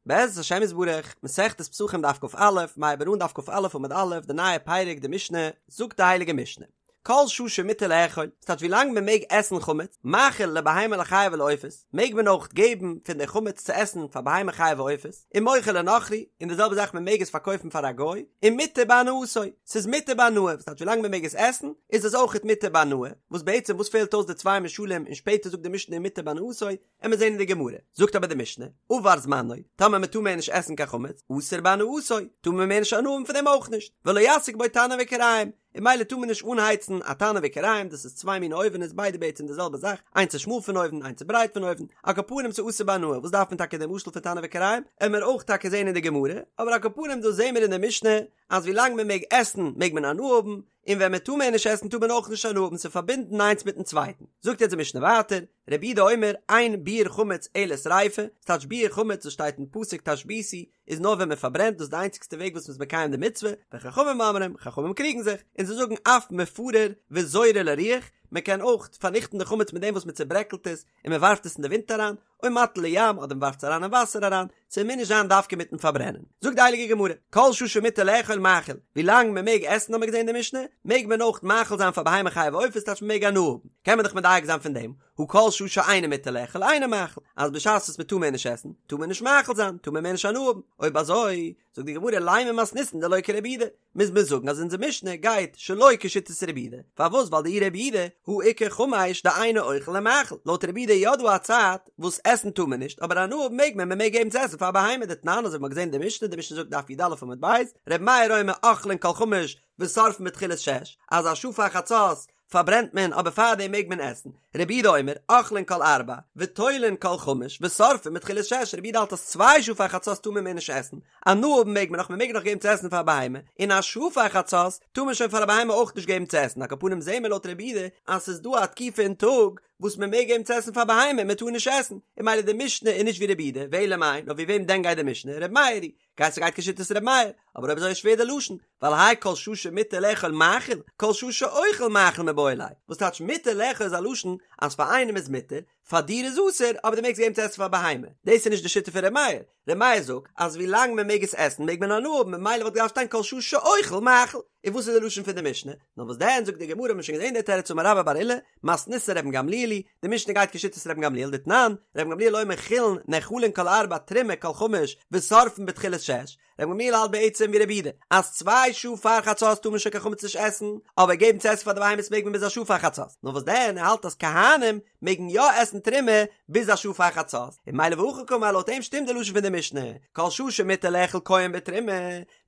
בעזרת השם יתברך, מסכת פסחים דף כ"א, מ'הייבט אן דף כ"א עמוד א', די נייע פרק די משנה, זאגט די הייליגע משנה, כל שעה שמותר לאכול, ס'טייטש ווי לאנג מען מעג עסן חמץ, מאכיל לבהמה לחיה ולעופות, מעג מען אויך געבן פון די חמץ צו עסן פאר בהמה חיה ועופות, ומוכר לנכרי, און די זעלבע זאך מען מעג עס פארקויפן פאר א גוי, ומותר בהנאתו, ס'איז מותר בהנאה, וואס טייטש ווי לאנג מען מעג עס עסן, איז עס אויכעט מותר בהנאה, וואס בעצם וואס פעלט אויס די צוויי משלים און שפעטער זאגט די משנה ומותר בהנאתו, עמיר זעהן אין די גמרא, זאגט אבער די משנה, עבר זמנו, טאמער מען טאר מער נישט עסן קיין חמץ, אסור בהנאתו, טאר מען מער נישט הנאה האבן פון דעם אויך נישט, ולא יסיק בו תנור וכיריים, און ממילא טאר מען נישט אנהייצן א תנור וכיריים, דאס איז צוויי מיני אויווענעס ביידע בעצם די זעלבע זאך, איינס איז שמאל פון אויבן איינס איז ברייט פון אויבן, על כל פנים ס'איז אסור בהנאה, וואס דארף מען טאקע די משל פון תנור וכיריים, עמיר אויך טאקע זעהן אין די גמרא, אבער על כל פנים דא זעהן מיר אין די משנה, אז ווי לאנג מען מעג עסן מעג מען הנאה האבן, און ווען מען טאר מער נישט עסן טאר מען אויך נישט הנאה האבן, ס'איז פארבינדן איינס מיטן צווייטן. זאגט יעצט די משנה ווייטער, רבי יהודה אומר, אין ביעור חמץ אלא שריפה, ס'טייטש ביעור חמץ וואס שטייט אין פסוק תשביתו, איז נאר ווען מען פארברענט, דאס איז די איינציגסטע וועג וואס מ'איז מקיים די מצוה, וחכמים אומרים, חכמים קריגן זיך, און זיי זאגן אף מפרר וזורה לרוח, מען קען אויך פארניכטן די חמץ מיט דעם וואס מען צעברעקלט עס און מען ווארפט עס אין די ווינט אריין, או מטיל לים, אדער מען ווארפט עס אריין אין וואסער אריין, ס'מוז נישט זיין דווקא מיטן פארברענען. זאגט די הייליגע גמרא, כל שעה שמותר לאכול מאכיל, ווי לאנג מען מעג עסן האט מען געזען אין די משנה, מעג מען אויך מאכיל זיין פאר בהמה חיה ועופות טייטש מען מעג הנאה האבן, קען מען דאך מדייק זיין פון דעם, הא כל שעה שאינו מותר לאכול אינו מאכיל, אז בשעת וואס מען טאר מער נישט עסן, טאר מען נישט מאכיל זיין, טאר מען מער נישט הנאה האבן, אויב אזוי, זאגט די גמרא לימא מתניתין דלא כרבי יהודה, מוז מען זאגן אז אונזער משנה גייט שלא כשיטת רבי יהודה, פארוואס ווייל דאי רבי יהודה הא איכא חמש דאינו אוכל ומאכיל, לויט רבי יהודה איז יא דא א צייט וואס עסן טאר מען נישט אבער הנאה האבן מעג מען, מען מעג געבן צו עסן פאר א בהמה דתנן אזוי ווי מען האט געזען אין די משנה, די משנה זאגט דף י"א עמוד ב', רבי מאיר אומר אוכלין כל חמש ושורפין בתחילת שש, אז א שעה פאר חצות פארברענט מען אבער פארדעם מעג מען עסן, רבי יהודה אומר, אוכלין כל ארבע, ותולין כל חמש, ושורפין בתחילת שש, רבי יהודה האלט אז צוויי שעה פאר חצות טאר מען מער נישט עסן, הנאה האבן מעג מען נאך, מען מעג נאך געבן צו עסן פאר א בהמה, און א שעה פאר חצות טאר מען שוין פאר א בהמה אויך נישט געבן צו עסן, על כל פנים זעהן מיר לויט רבי יהודה אז ס'איז דא א תקופה אין טאג וואס מען מעג געבן צו עסן פאר בהמה און מען טאר נישט עסן, און ממילא די משנה איז נישט ווי רבי יהודה, ואלא מאי, נאר ווי וועם דען גייט די משנה, רבי מאיר היא. גייט ס'גייט כשיטת ר' מאיר, אבער אויב אזוי איז שווער די לשון, ווייל האי כל שעה שמותר לאכול מאכיל, כל שעה שאוכל מאכיל מיבעי ליה, וואס טייטש מותר לאכול איז א לשון אז פאר איינעם איז מותר, פאר דיר איז אסור, אבער דו מעגסט געבן צו עסן פאר בהמה, דאס איז נישט די שיטה פון ר' מאיר, ר' מאיר זאגט אז ווי לאנג מען מעג עס עסן מעג מען הנאה האבן ממילא וואלט געדארפט שטיין כל שעה שאוכל מאכיל, און וואס איז די לשון פון די משנה? נאר וואס דען זאגט די גמרא האט מען שוין געזען די תירוץ אמר רבה בר עולא, מתניתין רבן גמליאל היא, די משנה גייט כשיטת רבן גמליאל דתנן, רבן גמליאל אומר חולין נאכלין כל ארבע תרומה כל חמש ושורפין בתחילת שש, רבן גמליאל האלט בעצם ווי רבי יהודה אז צוויי שעה פאר חצות טאר מען שוין קיין חמץ נישט עסן, אבער געבן צו עסן פאר די בהמות מעג מען ביז א שעה פאר חצות, נאר וואס דען ער האלט אז כהנים מעגן יא עסן תרומה ביז א שעה פאר חצות, און ממילא והכי קאמר לויט אים שטימט די לשון פון די משנה, כל שעה שמותר לאכול כהן בתרומה,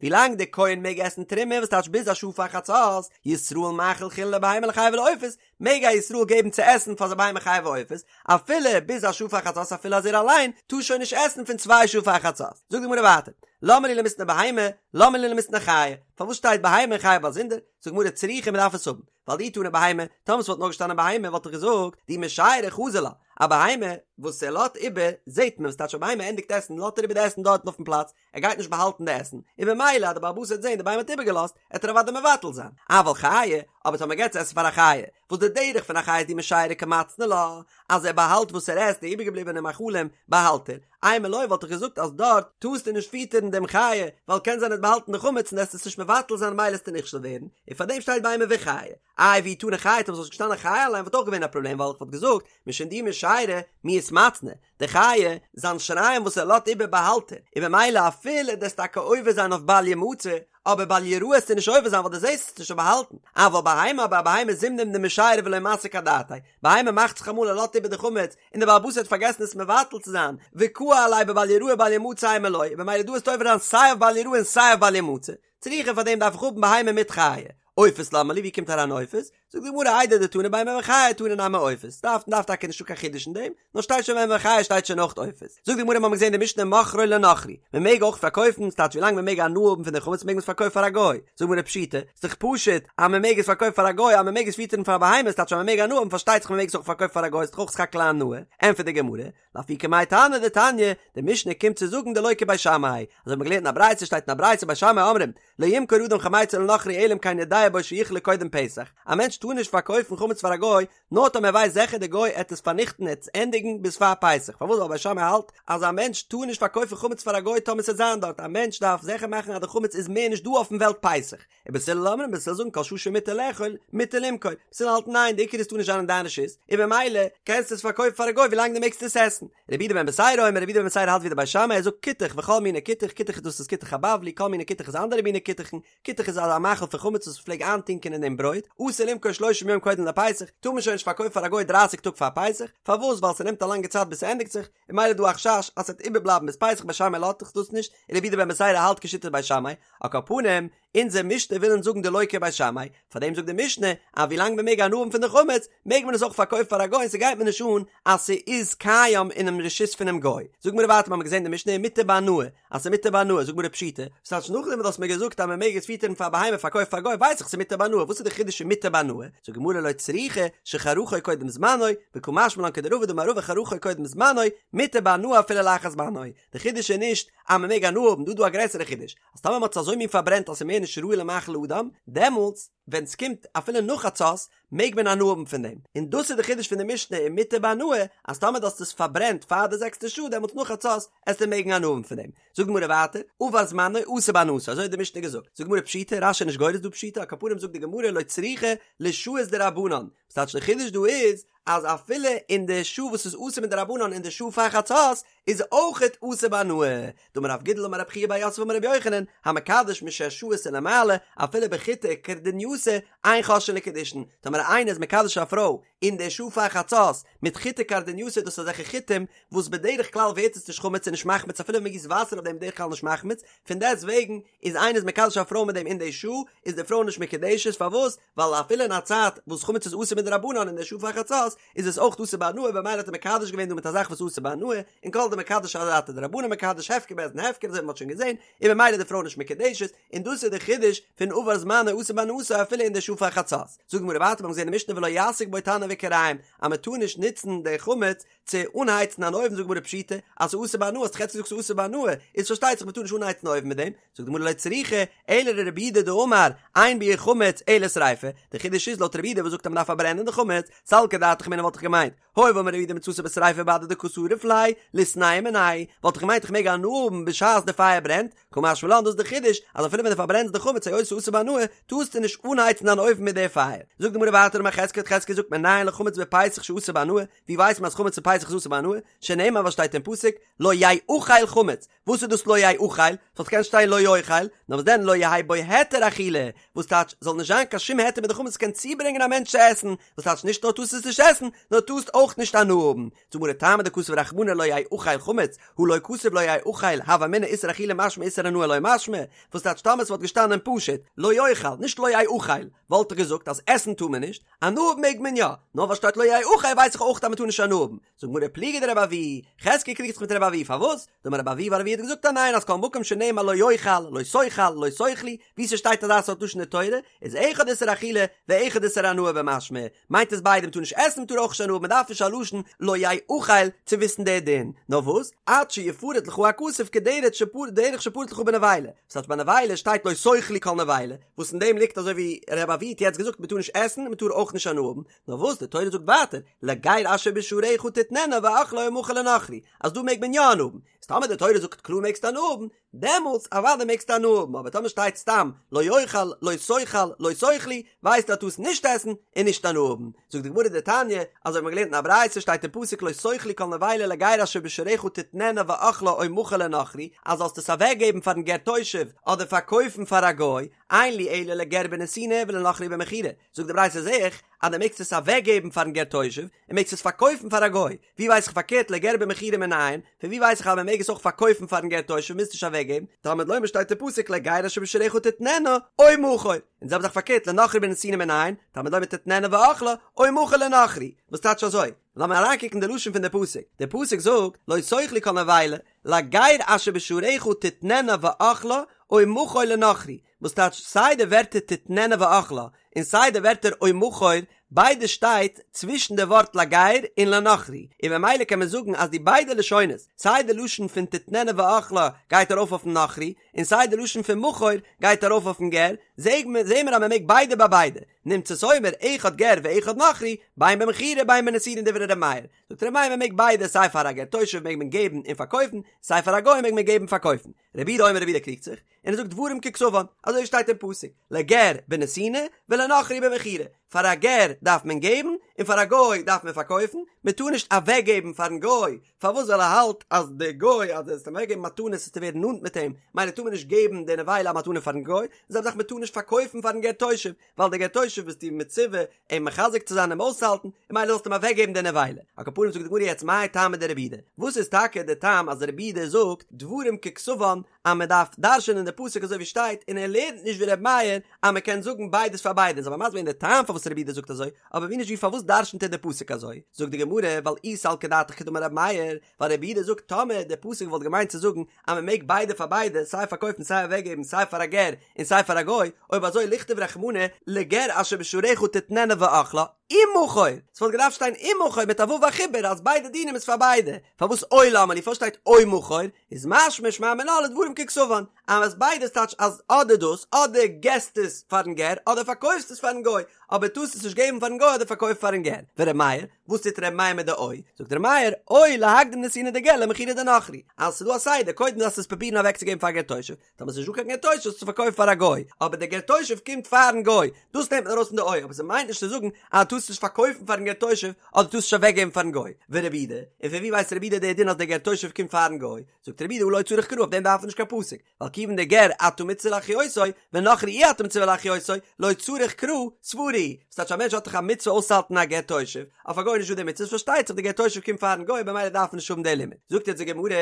ווילאנג דער כהן מעג עסן תרומה וואס טייטש ביז א שעה פאר חצות, ישראל מאכיל חולין לבהמה לחיה ולעופות, מעג א ישראל געבן צו עסן פאר זיין בהמה חיה ועופות, אפילו ביז א שעה פאר חצות אפילו אז ער אליין טאר שוין נישט עסן פון צוויי שעה פאר חצות. זאגט די גמרא ווייטער, למה לי למיתנא בהמה, למה לי למיתנא חיה, פארוואס שטייט בהמה און חיה באזונדער? זאגט די גמרא צריכא מען דארף עס האבן, ווייל דאי תנא בהמה, טאמער ס'וואלט נאר געשטאנען בהמה וואלט איך געזאגט, דאי משיירא חזי לה, א בהמה וואס ער לאזט איבער זעט מען, וואס טייטש א בהמה ענדיגט עסן לאזט ער איבער די עסן דארטן אויפן פלאץ, ער גייט נישט באהאלטן די עסן, און במילא אז די בעל הבית וועט זען די בהמה האט איבערגעלאזט, עט ער אוודאי מבטל זיין. אבל חיה, אבער טאמער מ'געט צו עסן פאר א חיה, וואס די דרך פון א חיה איז דאי משיירא קא מצנע לה, אז ער באהאלט וואס ער עסט, די איבערגעבליבענע מאכלים באהאלט ער, אימא לא וואלט איך געזאגט אז דארט טארסטו נישט פיטערן דעם חיה, ווייל קען זיין ער האט באהאלטן די חמץ און עסט עס נישט מבטל זיין ממילא עסטו נכשל ווערן, און פארדעם שטייט בהמה וחיה. איי ואי תנא חיה, טאמער ס'וואלט געשטאנען חיה אליין וואלט אויך געווען א פראבלעם ווייל איך וואלט געזאגט משום דאי משיירא מיהת מצנע, די חיה, זיין שיריים וואס ער לאזט איבער באהאלט ער, און במילא אפילו דו'סט טאקע עובר זיין אויף בל ימצא, אבער בל יראה עסטו נישט עובר זיין ווייל דו זעסט עס נישט באהאלטן, אבל בהמה אבער א בהמה זימנין דמשיירא ולא מסיק אדעתיה, בהמה מאכט זיך אמאל ער לאזט איבער די חמץ, און די בעל הבית האט פארגעסן עס מבטל צו זיין, וקאי עליה בבל יראה בל ימצא אימא לא, און במילא דא עסטו עובר זיין סיי אויף בל יראה און סיי אויף בל ימצא, צריכא פאר דעם דארף איך האבן בהמה מיט חיה. עופות למה לי ווי קומט אריין עופות? זאגט די גמרא איידי דתנא בהמה וחיה תנא נמי עופות, דארף דארף טאקע נישטא קיין חידוש אין דעם, נאר שטייט שוין בהמה וחיה שטייט שוין אויך עופות. זאגט די גמרא מ'האמיר געזען די משנה מוכרו לנכרי, מ'מעג אויך פארקויפן, ס'טייטש ווילאנג מ'מעג הנאה האבן פון די חמץ מעג מען עס פארקויפן פאר א גוי, זאגט די גמרא פשיטא, ס'דאך פשוט אז מ'מעג עס פארקויפן פאר א גוי אז מ'מעג עס פיטערן פאר א בהמה ס'טייטש אז מ'מעג הנאה האבן פארשטייט זיך מ'מעג עס אויך פארקויפן פאר א גוי ס'דאך אויך סך הכל א הנאה, ענטפערט די גמרא, לאפוקי מאי תנא דתניא, די משנה קומט צו זאגן דלא כבית שמאי, אזוי האט מען געלערנט אין א ברייתא שטייט אין א ברייתא בית שמאי אומרים, לא ימכור אדם חמיצו לנכרי אלא אם כן יודע בו שיכלה קודם פסח, א מענטש. טאר נישט פארקויפן חמץ פאר א גוי, נאר טאמער ער ווייסט זיכער די גוי עט עס פארניכטן עט עס ענדיגן ביז פאר פסח, פארוואס ווייל בית שמאי האלט אז א מענטש טאר נישט פארקויפן חמץ פאר א גוי טאמער ס'עט זיין דארט, א מענטש דארף זיכער מאכן אז די חמץ איז מער נישט דא אויפן וועלט פסח, ובית הלל אומרים בית הלל זאגן כל שעה שמותר לאכול מותר למכור, בית הלל האלטן ניין די עיקר איז טאר נישט זיין אין דיין רשות, און במילא קענסטו עס פארקויפן פאר א גוי ווילאנג דו מעגסט עס עסן. רבי יהודה בן בתירא אומר רבי יהודה בן בתירא האלט ווי די בית שמאי ער זאגט כותח וכל מיני כותח, כותח איז דאס איז כותח הבבלי כל מיני כותח איז אנדערע מיני כותח'ן, כותח איז אזא מאכל פון חמץ וואס מ'פלעג איינטונקען אין דעם ברויט, אסור למכור שלושים יום קודם לפסח, טאר מען שוין נישט פארקויפן פאר א גוי דרייסיג טאג פאר פסח, פארוואס ווייל ס'נעמט א לאנגע צייט ביז ס'ענדיגט זיך, און ממילא איז דא א חשש אז ס'וועט איבערבלייבן ביז פסח בית שמאי לאזט דאך דאס נישט, און רבי יהודה בן בתירא האלט כשיטת בית שמאי, על כל פנים, אונזער משנה וויל אונז זאגן דלא כבית שמאי, פארדעם זאגט די משנה אז ווילאנג מען מעג הנאה האבן פון די חמץ, מעג מען עס אויך פארקויפן פאר א גוי און ס'גייט מיר נישט אן אז ס'איז קיים אינעם רשות פונעם גוי. זאג מיר ווייטער מ'האמיר געזען די משנה ומותר בהנאה, אז ס'מותר בהנאה, זאג מיר פשיטא, ס'טייטש נאכדעם וואס דו האסט מיר געזאגט אז מ'מעג עס פיטערן פאר א בהמה פארקויפן פאר א גוי ווייס איך ס'מותר בהנאה, וואס איז די חידוש אין מותר בהנאה? זאגט די גמרא לא צריכא שחרכו קודם זמנו, וקא משמע לן כדרבא דאמר רבא חרכו קודם זמנו, מותר בהנאה אפילו לאחר זמנו. די חידוש איז נישט אז מ'מעג הנאה האבן, דא איז דא א גרעסערע חידוש, אז טאמער מ'האט עס אזוי מין פארברענט אז ס'איז מער נישט ראוי למאכל אדם, דעמאלטס ווען ס'קומט אפילו נאך חצות מעג מען הנאה האבן פון דעם, און דאס איז די חידוש פון די משנה ומותר בהנאה, אז טאמער דו האסט עס פארברענט פאר די זעקסטע שעה דעמאלטס נאך חצות עסטו מעגן הנאה האבן פון דעם. זאגט די גמרא ווייטער, עבר זמנו אסור בהנאתו, אזוי האט די משנה געזאגט, זאגט די גמרא פשיטא, רש"י איז נישט גורס דא פשיטא, על כל פנים זאגט די גמרא לא צריכא לשעות דרבנן, וואס טייטש די חידוש דא איז, אז אפילו אין די שעה וואס איז אסור מדרבנן אין די שעה פאר חצות איז אויכעט אסור בהנאה. דאמר רב גידל אמר רב חייא בר יוסף אמר רבי יוחנן, המקדש משש שעות ולמעלה, אפילו בחיטי כורדינייתא, אין חוששין לקידושין. טאמער איינער איז מקדש א פרוי אין די שעה פאר חצות מיט חיטי כורדינייתא דאס איז אזעלכע חיטים וואס בדרך כלל ווערט עס נישט חמץ און נישט מחמיץ אפילו ווען מען גיסט וואסער אויף דעם בדרך כלל נישט מחמיץ, פון דעסט וועגן איז איינער איז מקדש א פרוי מיט דעם אין די שעה איז די פרוי נישט מקודשת פארוואס? ווייל אפילו אין א צייט וואס חמץ איז אסור מדרבנן אין די שעה פאר חצות איז עס אויך אסור בהנאה במילא האט ער מקדש געווען דא מיט א זאך וואס איז אסור בהנאה און כל דמקדש אדעתא דרבנן מקדש הפקר בית דין הפקר אזוי ווי מען האט שוין געזען און במילא איז די פרוי נישט מקודשת און דאס איז די חידוש פון עבר זמנו אסור בהנאתו אפילו אין די שעה פאר חצות זאגט די גמרא ווייטער מיר האבן געזען אין משנה ולא יסיק בו תנור וכירים אז מען טאר נישט נוצן די חמץ צו אנהייצן אן אויוון זאגט די גמרא פשיטא אז ס'איז אסור בהנאה האסט דאך יעצט געזאגט ס'איז אסור בהנאה איז פארשטייט זיך מ'טאר נישט אנהייצן אויוון מיט דעם זאגט די גמרא לא צריכא אלא לרבי יהודה דאמר אין ביעור חמץ אלא שריפה די חידוש איז לויט רבי יהודה וואס זאגט אז מ'דארף פארברענען די חמץ סלקא דעתך אמינא וואלט איך געמיינט הואיל ואמר רבי יהודה מצתו בשריפה בהדי דקא שריף ליה ליתנהו מיניה וואלט איך געמיינט איך מעג הנאה האבן בשעת די פייער ברענט קא משמע לן דאס איז די חידוש אז אפילו ווען דו פארברענסט די חמץ היות ס'איז אסור בהנאה טארסטו נישט אנהייצן דיין אויוון מיט די פייער זאגט די גמרא ווייטער אמר חזקיה האט חזקיה געזאגט מנין לחמץ בפסח שאסור בהנאה ווי ווייסט מען אז חמץ אין פסח איז אסור בהנאה? שנאמר וואס שטייט אין פסוק לא יאכל חמץ, וואס איז דאס לא יאכל? ס'וואלט געקענט שטיין לא יאכל, נאר וואס דען לא יהא בו היתר אכילה, וואס טייטש זאל נישט זיין קיין שום היתר מיט די חמץ קען צוברענגען א מענטש צו עסן, וואס טייטש נישט נאר טארסט עס נישט עסן, נאר טארסט אויך נישט הנאה האבן. זאגט די גמרא טעמא דכתב רחמנא לא יאכל חמץ, הא לא כתב לא יאכל, הוה אמינא איסור אכילה משמע איסור הנאה לא משמע, וואס טייטש טאמער ס'וואלט געשטאנען פשוט לא יאכל, נישט לא יאכל, וואלט איך געזאגט אז עסן טאר מען נישט, הנאה האבן מעג מען יא, נאר ווייל שטייט לא יאכל ווייס איך אויך אז מ'טאר נישט הנאה האבן. זאגט גמרא פליגא דרבי אבהו, חזקיה קריגט זיך מיט רבי אבהו פארוואס? דאמר רבי אבהו ווייל רבי אבהו האט געזאגט אז ניין אז כל מקום שנאמר לא יאכל, לא תאכל, לא תאכלו, ווי ס'שטייט אזא סארט לשון אין תורה, איז אחד איסור אכילה ואחד איסור הנאה במשמע, מיינט עס ביידע מ'טאר נישט עסן מ'טאר אויך נישט הנאה האבן מ'דארף נישט א לשון לא יאכל צו וויסן די דין, נאר וואס? עד שיפרט לך הכתוב כדרך שפרט שפרט לך בנבילה, ס'טייטש ביי נבילה שטייט לא תאכלו כל נבילה, וואס אין דעם ליגט אזוי ווי רבי אבהו האט יעצט געזאגט מ'טאר נישט עסן און מ'טאר אויך נישט הנאה האבן, נאר וואס די תורה זאגט ווייטער לגר אשר בשעריך תתננה ואכלה או מכור לנכרי, אז דא מעג מען יא הנאה האבן, איז טאמער די תורה זאגט קלאר מעגסטו הנאה האבן, דעמאלטס אוודאי מעגסטו הנאה האבן, אבער טאמער שטייט סתם לא יאכל, לא תאכל, לא תאכלו, ווייסטו אז טארסט נישט עסן און נישט הנאה האבן. זאגט די גמרא דתניא, אזוי האט מען געלערנט אין א ברייתא שטייט אין פסוק לא תאכלו כל נבילה לגר אשר בשעריך תתננה ואכלה או מכור לנכרי, אז זאלסט עס אוועק געבן פארן גר תושב אדער פארקויפן פאר א גוי, אין לי אלא לגר בנתינה ולנכרי במכירה, זאגט די ברייתא זעה איך אז דו מעגסט עס אוועק געבן פארן גר תושב און מעגסט עס פארקויפן פאר א גוי, ווי ווייס איך פארקערט לגר במכירה מנין, פון ווי ווייס איך אז מען מעג עס אויך פארקויפן פארן גר תושב מוזט נישט אוועק געבן, תלמוד לומר שטייט אין פסוק לגר אשר בשעריך תתננה או מכור, און זעלבע זאך פארקערט לנכרי בנתינה מנין, תלמוד לומר תתננה ואכלה או מכור לנכרי, וואס טייטש אזוי? לאמיר אריינקוקן די לשון פון די פסוק, די פסוק זאגט לא תאכלו כל נבילה, לגר אשר בשעריך תתננה ואכלה או מכור לנכרי, וואס טייטש סיי די ווערטער תתננה ואכלה און סיי די ווערטער או מכור, ביידע שטייט צווישן די ווארט לגר און לנכרי, און ממילא קען מען זאגן אז די ביידע לשונות, סיי די לשון פון תתננה ואכלה גייט ארויף אויפן נכרי, און סיי די לשון פון מכור גייט ארויף אויפן גר, זעהן מיר אז מען מעג ביידע ביי ביידע. נמצאת אומר אחד גר ואחד נכרי, בין במכירה בין בנתינה דברי ר' מאיר. זאגט ר' מאיר מען מעג ביידע סיי פאר א גר תושב מעג מען געבן און פארקויפן, סיי פאר א גוי מעג מען געבן און פארקויפן. רבי יהודה אומר רבי יהודה קריגט זיך, און ער זאגט דברים ככתבן, אזוי ווי שטייט אין פסוק, לגר בנתינה ולנכרי במכירה, פאר א גר דארף מען געבן און פאר א גוי דארף מען פארקויפן, מען טאר נישט אוועקגעבן פארן גוי, פארוואס ווייל ער האלט אז די גוי אז דו וועסט אים אוועקגעבן מתנות וועסטו ווערן נאנט מיט אים, מילא טאר מען נישט געבן די נבילה א מתנה פארן גוי, די זעלבע זאך מען טאר נישט פארקויפן פארן גר תושב, ווייל די גר תושב ביסטו מצווה אים מחזק צו זיין אים אויסצוהאלטן, און מילא זאלסטו אים אוועקגעבן די נבילה. על כל פנים זאגט די גמרא יעצט מאי טעמא דרבי יהודה, וואס איז טאקע די טעם אז רבי יהודה זאגט דברים ככתבן אז מען דארף דרש'ענען די פסוק אזוי ווי שטייט און ער לערנט נישט ווי רבי מאיר אז מען קען זאגן ביידעס פאר ביידע, זאל מען מסביר זיין די טעם פארוואס רבי יהודה זאגט אזוי, אבער ווי נישט ווי פארוואס דרש'נט ער די פסוק אזוי, זאגט די גמרא ווייל אי סלקא דעתך כדאמר רבי מאיר, ווייל רבי יהודה זאגט טאמער די פסוק וואלט געמיינט צו זאגן אז מען מעג ביידע פאר ביידע סיי פארקויפן סיי אוועקגעבן סיי פאר א גר און סיי פאר א גוי, אויב אזוי ליכתוב רחמנא לגר אשר בשעריך תתננה ואכלה, ומכור, ס'וואלט געדארפט שטיין ומכור מיט א ו' החיבור אז ביידע דינים איז פאר ביידע, פארוואס או למה לי פארוואס שטייט או מכור, איז משמע שמע מינה לדברים ככתבן, אז ביידע איז טייטש אז אדער דאס אדער געסט עס פארן גר אדער פארקויפסט עס פארן גוי, אבער טארסט עס נישט געבן פארן גוי אדער פארקויפן פארן גר, ור' מאיר, וואס טוט ר' מאיר מיט די או? זאגט ר' מאיר, או להקדים נתינה דגר למכירה דנכרי, אז ס'איז דא א סדר, קודם דארפסטו עס פרובירן אוועקצוגעבן פאר גר תושב, טאמער ס'איז נישט דא קיין גר תושב זאלסטו פארקויפן פאר א גוי, אבער דער גר תושב קומט פארן גוי, דאס נעמט מען ארויס פון די או, אבער ס'מיינט נישט צו זאגן אז דו טארסט נישט פארקויפן פארן גר תושב, אדער טארסט נישט אוועקגעבן פארן גוי. ורבי יהודה, און פון ווי ווייסט רבי יהודה די דין אז דער גר תושב קומט פארן גוי? זאגט רבי יהודה הא לא צריך קרא, אויף דעם דארף מען נישט קיין פסוק, ווייל כיוון דגר אתה מצווה להחיותו, ונכרי אי אתה מצווה להחיותו, לא צריך קרא, סברא הוא. ס'טייטש א מענטש האט דאך א מצוה אויסצוהאלטן א גר תושב, אויף א גוי איז נישט דא די מצוה, פארשטייט זיך די גר תושב קומט פארן גוי במילא דארף מען נישט האבן די לימוד. זאגט יעצט די גמרא,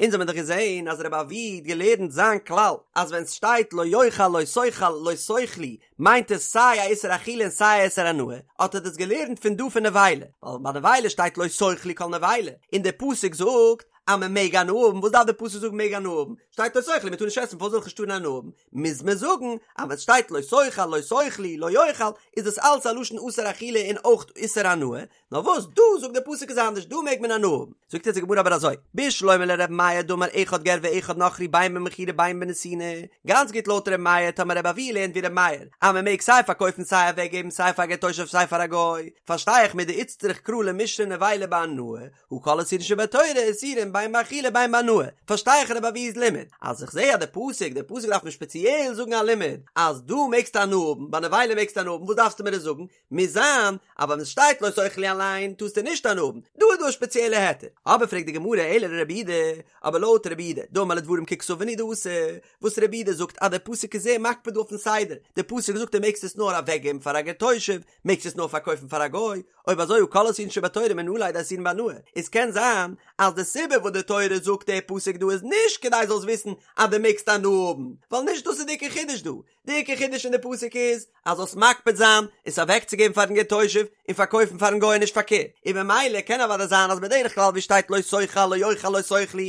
אונז האבן דאך געזען אז רבי אבהו האט געלערנט זיין כלל אז ווען סשטייט לא יאכל לא תאכל לא תאכלו מיינט עס סיי א איסור אכילה און סיי א איסור הנאה, האט ער דאס געלערנט פון דא פון נבילה, ווייל ביי נבילה שטייט לא תאכלו כל נבילה, און די פסוק זאגט אז מען מעג הנאה האבן, וואס דארף די פסוק זאגן מעג הנאה האבן? שטייט לא תאכלו מען טאר נישט עסן פארוואס זאל איך נישט טארן הנאה האבן? מוז מען זאגן אז ווען סשטייט לא תאכל לא תאכלו לא יאכל איז דאס אלץ א לשון אסור אכילה און אויך איסור הנאה, נאר וואס דא זאגט דער פסוק איז אנדערש דא מעג מען הנאה האבן, זאגט יעצט די גמרא אבער אזוי, בשלמא לר' מאיר דאמר אחד גר ואחד נכרי בין במכירה בין בנתינה, גאנץ גוט לויט ר' מאיר טאמער רבי אבהו לערנט ווי ר' מאיר אז מען מעג סיי פארקויפן סיי אוועק געבן סיי פאר גר תושב סיי פאר א גוי, פארשטיי איך מדאיצטריך קרא למישרי נבילה בהנאה, הא כל איסורין שבתורה איסורין בין באכילה בין בהנאה, פארשטיי איך רבי אבהו'ס לימוד, אז איך זעה אז די פסוק, די פסוק דארף מיר שפעציעל זאגן א לימוד אז דא מעגסטו הנאה האבן, ביי נבילה מעגסטו הנאה האבן, וואס דארפסטו מיר עס זאגן? מוז זיין אז ווען עס שטייט לא תאכלו אליין טארסטו נישט הנאה האבן, דא איז דא א שפעציעלע היתר. אבער פרעגט די גמרא אלא לרבי יהודה, אבער לויט רבי יהודה, דאמר לדברים ככתבן הוא דאתא, וואס רבי יהודה זאגט אז דער פסוק איז זייער מקפיד דא אויפן סדר, דער פסוק זאגט דו מעגסט עס נאר אוועקגעבן פאר א גר תושב, מעגסט עס נאר פארקויפן פאר א גוי, אויב אזוי הא כל איסורין שבתורה מנא ליה דאיסורין בהנאה, עס קען זיין אז די סיבה וואס די תורה זאגט דער פסוק דא איז נישט כדי זאלסט וויסן אז דו מעגסט הנאה האבן, ווייל נישט דאס איז די עיקר חידוש דא, די עיקר חידוש אין די פסוק איז אז זאלסט מקפיד זיין עס אוועקצוגעבן פארן גר תושב און פארקויפן פארן גוי און נישט פארקערט, און ממילא קען אוודאי זיין אז בדרך כלל ווי שטייט לא תאכל לא יאכל לא תאכלו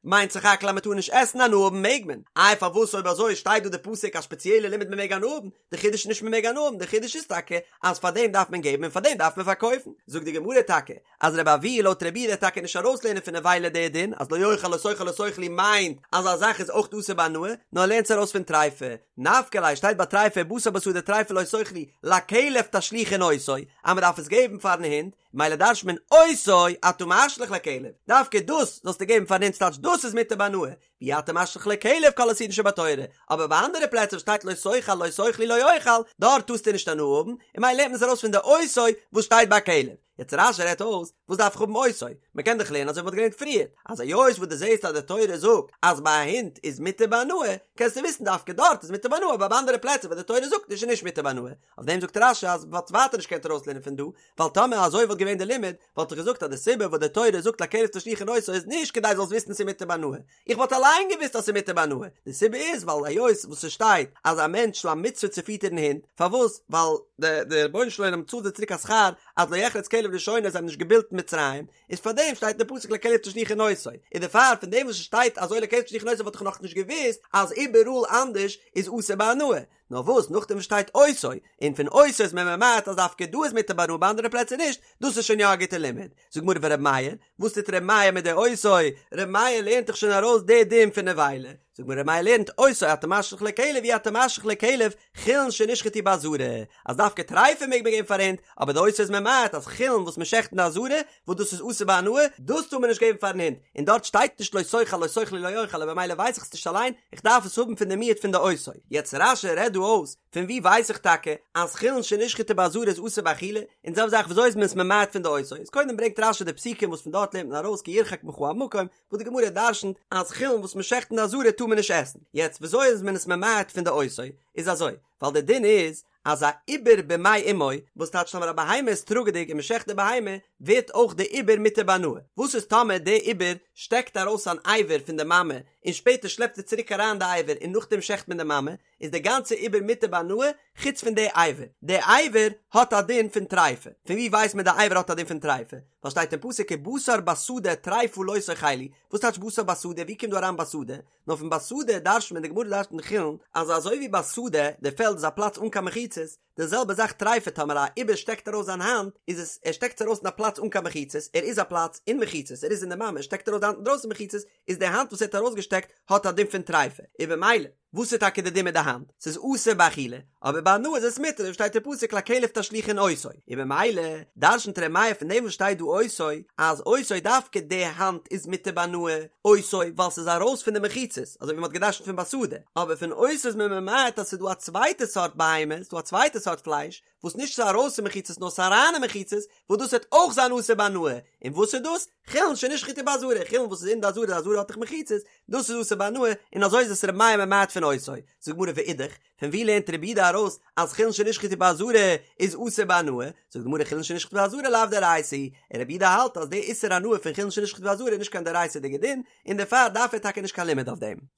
מיינט סך הכל אז מען טאר נישט עסן הנאה האבן מעג מען, איי פארוואס אויב אזוי שטייט דא די פסוק א שפעציעלע לימוד מען מעג הנאה האבן, די חידוש איז נישט מען מעג הנאה האבן די חידוש איז טאקע אז פאר דעם דארף מען געבן און פאר דעם דארף מען פארקויפן, זאגט די גמרא טאקע אז רבי אבהו לויט רבי יהודה טאקע נישט ארויסלערנען פון נבילה די דין אז לא יאכל לא תאכל לא תאכלו מיינט אז א זאך איז אויך אסור בהנאה נאר ער לערנט עס ארויס פון טריפה נפקא ליה שטייט ביי טריפה בשר בשדה טריפה לא תאכלו לכלב תשליכון אותו אז מען דארף עס געבן פארן הונט מילא דרש'נט מען אותו אתה משליך לכלב דווקא דאס זאלסטו געבן פארן הונט ס'טייטש דאס איז מותר בהנאה ואי אתה משליך לכלב כל איסורין שבתורה, אבער ביי אנדערע פלעצער וואס שטייט לא תאכל לא תאכלו לא יאכל, דארט טארסטו נישט הנאה האבן, און ממילא לערנט מען עס ארויס פון די אותו וואס שטייט ביי כלב. יעצט רש"י רעדט אויס, וואס דארף איך האבן אותו? מען קען דאך לערנען אזוי ווי מען האט געלערנט פריער, אז היות וואס דו זעסט אז די תורה זאגט אז ביי א הונט איז מותר בהנאה, קענסטו וויסן דווקא דארט איז מותר בהנאה, אבער ביי אנדערע פלעצער וואס די תורה זאגט נישט איז נישט מותר בהנאה. אויף דעם זאגט רש"י אז מען וואלט ווייטער נישט געקענט ארויסלערנען פון דא, ווייל טאמער אזוי וואלט געווען די לימוד, וואלט איך געזאגט אז די סיבה וואס די תורה זאגט לכלב תשליכון אותו איז נישט כדי זאלסט וויסן ס'איז מותר בהנאה, איך וואלט אליין געוואוסט אז ס'איז מותר בהנאה, די סיבה איז ווייל היות וואס ס'שטייט אז א מענטש איז א מצוה צו פיטערן הינט, פארוואס? ווייל די די רבונו של עולם צאלט זיי צוריק א שכר אז לא יחרץ כלב לשונו זיי האבן נישט געבילט אין מצרים, איז פארדעם שטייט אין די פסוק לכלב תשליכון אותו, און דערפאר פון דעם וואס ס'שטייט אזוי לכלב תשליכון אותו וואלט איך נאכנישט געוואוסט אז איבעראל אנדערש איז אסור בהנאה. נאר וואס נאכדעם וואס שטייט אותו, און פון אותו איז מען ממעט אז דווקא דא איז מותר בהנאה ביי אנדערע פלעצער נישט, דאס איז שוין יא א גוטע לימוד. זאגט גמרא ור' מאיר, וואס טוט ר' מאיר מיט די אותו? ר' מאיר לערנט דאך שוין ארויס די דין פון נבילה. זאגט גמרא ר' מאיר לערנט אותו אתה משליך לכלב אי אתה משליך לכלב חולין שנשחטו בעזרה, אז דווקא טריפה מעג מען געבן פאר הינט, אבער די אותו איז ממעט אז חולין וואס מען שעכט אין די עזרה, וואס דאס איז אסור בהנאה, דאס טאר מען נישט געבן פארן הונט, און דארט שטייט נישט לא תאכל לא תאכלו לא יאכל און במילא ווייס איך עס נישט אליין, איך דארף עס האבן פון די מיעוט פון די אותו. יעצט רש"י רעדט דא אויס, פון וואו ווייס איך טאקע אז חולין שנשחטו בעזרה איז אסור באכילה, און זעלבע זאך וויאזוי איז מען עס ממעט פון די אותו, איז קודם ברענגט רש"י די פסוקים וואס פון דארט לערנט מען ארויס כי ירחק ממך המקום, וואס די גמרא דרשנ'ט אז חולין וואס מען שעכט אין די עזרה טאר מען נישט עסן, יעצט וויאזוי איז מען עס ממעט פון די אותו, איז אזוי, ווייל די דין איז אז א עובר במעי אמו, וואס טייטש טאמער א בהמה איז טראגעדיג און מען שעכט די בהמה, ווערט אויך די עובר מותר בהנאה, וואס איז טאמער די עובר שטעקט ארויס אן אבר פון די מאמע און שפעטער שלעפט ער צוריק אריין די אבר און נאכדעם שעכט מען די מאמע, איז די גאנצע עובר מותר בהנאה חוץ פון די אבר, די אבר האט א דין פון טריפה, פון ווי ווייסט מען די אבר האט א דין פון טריפה? ווייל שטייט אין פסוק ובשר בשדה טריפה לא תאכלו, וואס טייטש בשר בשדה ווי קומט דא אריין בשדה? נאר פון בשדה דרש'נט מען, די גמרא דרש'נט אין חולין, אז אזוי ווי בשדה, די פעלד איז א פלאץ אן קיין מחיצות, די זעלבע זאך טריפה טאמער א עובר שטעקט ארויס זיין האנט, איז עס, ער שטעקט עס ארויס אין א פלאץ אן קיין מחיצות, ער איז א פלאץ אין מחיצות, ער איז אין די מאמע, שטעקט ארויס די האנט אינדרויסן מחיצות, איז די האנט וואס ער האט ארויסגעשטעקט האט א דין פון טריפה, און במילא. וואס איז טאקע די דין מיט די האנט? ס'איז אסור באכילה, אבער בהנאה איז עס מותר, שטייט אין פסוק לכלב תשליכון אותו, און במילא דרשנ'ט ר' מאיר פון דעם וואס שטייט דא אותו, אז אותו דווקא די האנט איז מותר בהנאה, אותו ווייל ס'איז ארויס פון די מחיצות, אזוי ווי מ'האט געדרשנ'ט פון בשדה, אבער פון אותו איז מען ממעט אז ס'איז דא א צווייטע סארט בהמה, ס'איז דא א צווייטע סארט פלייש, וואס נישט ס'איז ארויס פון מחיצות נאר ס'איז אריין אין מחיצות, וואס דאס וועט אויך זיין אסור בהנאה, און וואס איז דאס? חולין שנשחטו בעזרה, חולין וואס איז אין די עזרה, די עזרה האט דאך מחיצות, דאס איז אסור בהנאה, און אזוי איז עס ר' מאיר ממעט פון אותו. זאגט די גמרא ואידך, פון ווי לערנט רבי יהודה ארויס אז חולין שנשחטו בעזרה איז אסור בהנאה? זאגט די גמרא חולין שנשחטו בעזרה לאו דאורייתא היא, און רבי יהודה האלט אז די איסור הנאה פון חולין שנשחטו בעזרה איז נישט קיין דאורייתא'דיגע דין, און דערפאר דארף ער טאקע נישט קיין לימוד אויף דעם.